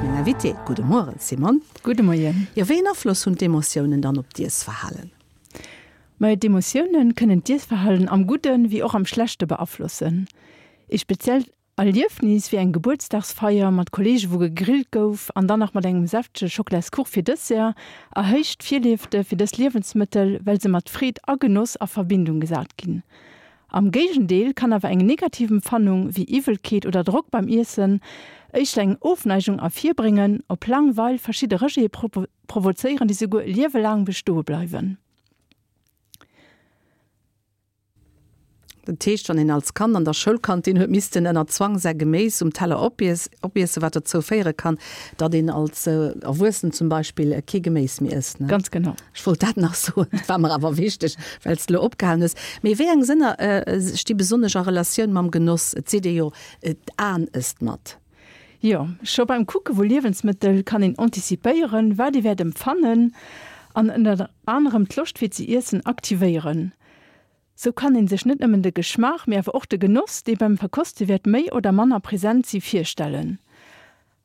meng Invitée. Gudde Mueren, Simone. Gudde Moien. Jo, wéi een Afloss hunn d'Emotiounen dann op d'Iessverhalen? Majo, d'Emotioune kënnen d'Iessverhalen am Gudden wéi och am Schlechte beaflossen. Ee speziellt Erliefnis wéi eng Gebuertsdagsfeier mat Kolleege wou gegrillt gouf an dann nach mat engem säftege Schocklaskuch fir Dessert, erhéicht d'Virliefte fir dës Liewensmëttel, well se mat Freed a Genoss a Verbindung gesat ginn. Am Géigendeel kann awer eng negativ Empfannung wéi Iwwelkeet oder Drock beim Iessen éischter eng Ofneigung ervirbréngen, op laang Weil verschidde Rejete provozéieren, déi souguer e Liewe laang bestoe bleiwen. Dat heescht, wann een als Kand an der Schoulkantin huet missten ënner Zwang säi Geméis um Teller opiessen, wat dozou féiere kann, datt een als Erwuessen zum Beispill kee Geméis méi ësst, ne? Ganz genau. Ech wollt dat nach soen, dat war mer awer wichteg, well s de elo opgehalen hues. Mee wéi eng Sënner sti besonnesch a Relatioun mam Genoss? Et seet ee jo, d'Aen ësst mat. Jo, scho beim Kucke vu Liewensmëttel kann een antizipéieren, wat ee wäert empfannen an ënner anerem d'Loscht fir ze iessen aktivéieren. Sou kann een sech net nëmmen de Geschmaach, mee awer och de Genoss, dee beim Verkoste wäert méi oder manner present si, virstellen.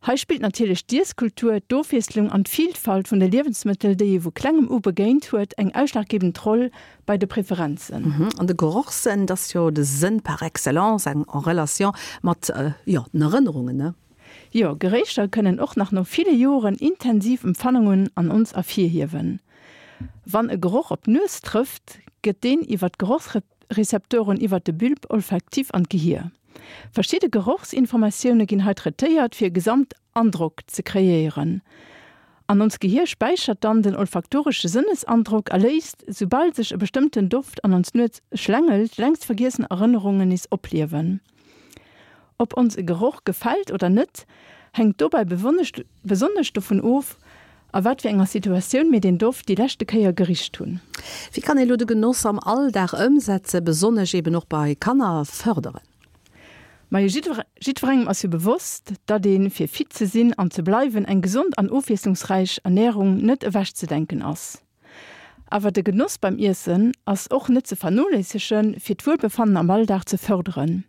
Hei spillt natierlech d'Iesskultur, d'Ofwiesslung an d'Vilfalt vun de Liewensmëttel, déi ee vu klengem u begéint huet, eng ausschlaggebend Roll bei de Preferenzen. An de Gerochssënn, dat ass jo de Sënn par excellence, en relation mat, jo, den Erënnerungen, ne? Jo, Geréicher kënnen och nach no ville Joren intensiv Empfannungen an ons ervirhiewen. Wann e Geroch op d'Nues trëfft, gëtt deen iwwer d'Gerochsrezeptoren iwwer de Bulbe olfactif an d'Gehier. Verschidde Gerochsinformatioune ginn hei traitéiert, fir e Gesamtandrock ze kreéieren. An ons Gehier späichert dann den olfaktoresche Sënnesandrock a léisst, soubal sech e bestëmmten Doft an ons Nues schlängelt, längst vergiessen Erënnerungen nees opliewen. Ob ons e Geroch gefält oder net, hänkt dobäi besonnesch dovun of, a wat fir enger Situatioun mir deen Doft déi leschte Kéier gericht hunn. Wéi kann ee lo de Genoss am Alldag ëmsetzen, besonnesch eben och bei Kanner fërderen? Majo, jiddwerengem ass jo bewosst, datt ee fir fit ze sinn an ze bleiwen eng gesond an ofwiesslungsräich Ernärung net ewechzedenken ass. Awer de Genoss beim Iessen ass och net ze vernoléissegen, fir d'Wuelbefannen am Alldag ze fërderen.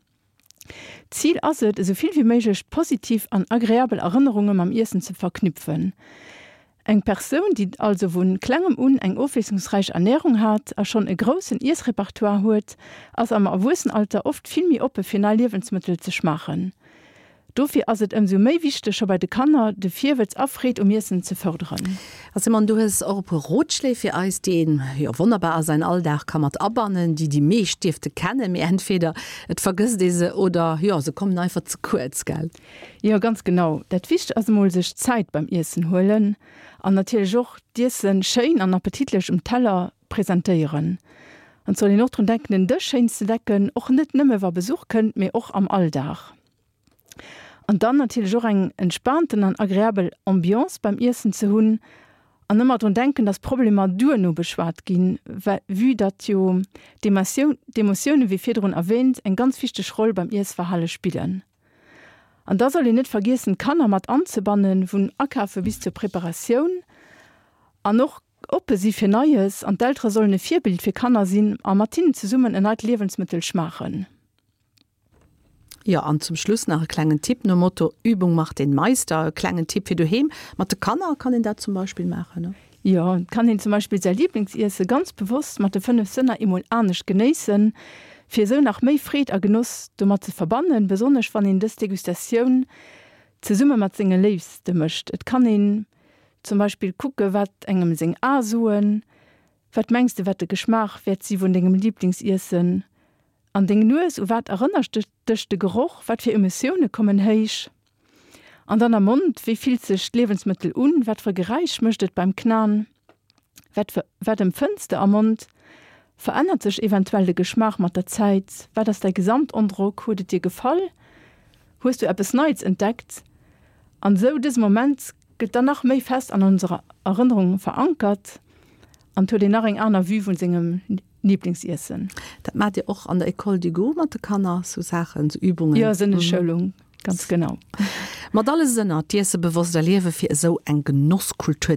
D'Zil ass et, esou vill wéi méiglech positiv an agreabel Erënnerunge mam Iessen ze verknüpfen. Eng Persoun, déi also vu klengem un eng ofwiesslungsräich Ernärung hat a schonn e groussen Iessrepertoire huet, ass am Erwuessenalter oft vill méi oppe fir nei Liewensmëttel ze schmaachen. Dofir ass et ëmsou méi wichteg, scho bei de Kanner de Virwëtz a Freed um Iessen ze fërderen. A Simone, du hues och e puer Rotschléi fir eis, déi een jo wonnerbar a säin Alldag ka mat abannen, déi déi meescht dierfte kennen, mee entweder et vergësst ee se oder jo, se kommen einfach ze kuerz, gell? Jo, ganz genau. Dat Wichtegst ass emol sech Zäit beim Iessen huelen an natierlech och d'Iessen schéin an appetitlech um Teller presentéieren. An et soll een och drun denken, den Dësch schéin ze decken, och net nëmme wa Besuch kënnt, mee och am Alldag. An dann natierlech och eng entspaanten an agreabel Ambiance beim Iessen ze hunn an ëmmer drun denken, dass Problemer duerno beschwat ginn, well vue datt jo d'Emotioune wéi virdrun erwähnt eng ganz wichteg Roll beim Iessverhale spillen. An da soll een net vergiessen d'Kanner mat anzebannen, vun Akafe bis zur Preparatioun an och oppe si fir Neies an d'Eltere sollen e Virbild fir Kanner sinn a mat hinnen zesummen en neit Liewensmëttel schmaachen. Jo, an zum Schluss nach e klengen Tipp nom Motto Übung macht den Meister. E klengen Tipp fir doheem. Mat de Kanner kann een dat zum Beispill maachen, ne? Jo, et kann een zum Beispill säi Liblingsiesse ganz bewosst mat de 5 Sënner eemol anescht genéissen, fir esou nach méi Freed a Genoss domat ze verbannen, besonnesch wann een dës Degustatioun zesumme mat senge Léifste mécht. Et kann een zum Beispill kucke wat engem seng Ae soen, Wat mengs de wat de Geschmaach wäert si vun dengem Liblingsiessen? An deng Nues, u wat erënnert dech de Geroch, wat fir Emotioune kommen héich? An dann am Mond, wéi fillt sech d'Liewensmëttel un, wat fir e Geräisch mécht et beim Knaen, wat wat empfënns de am Mond? Verännert sech eventuell de Geschmaach mat der Zäit? Wat ass däi Gesamtandrock, huet et dir gefall, hues du eppes Neits entdeckt? An esou dëse Moment gëtt dann nach méi fest an onserer Erënnerung verankert an et huet een nach eng aner Vue vun sengem Lieblingsiessen. Dat maacht Dir och an der École du goût mat de Kanner, sou Saachen, sou Übungen? Jo, Sënneschoulung, ganz genau. Mat alle Sënner d'Iesse bewosst erliewen, fir esou eng Genosskultur.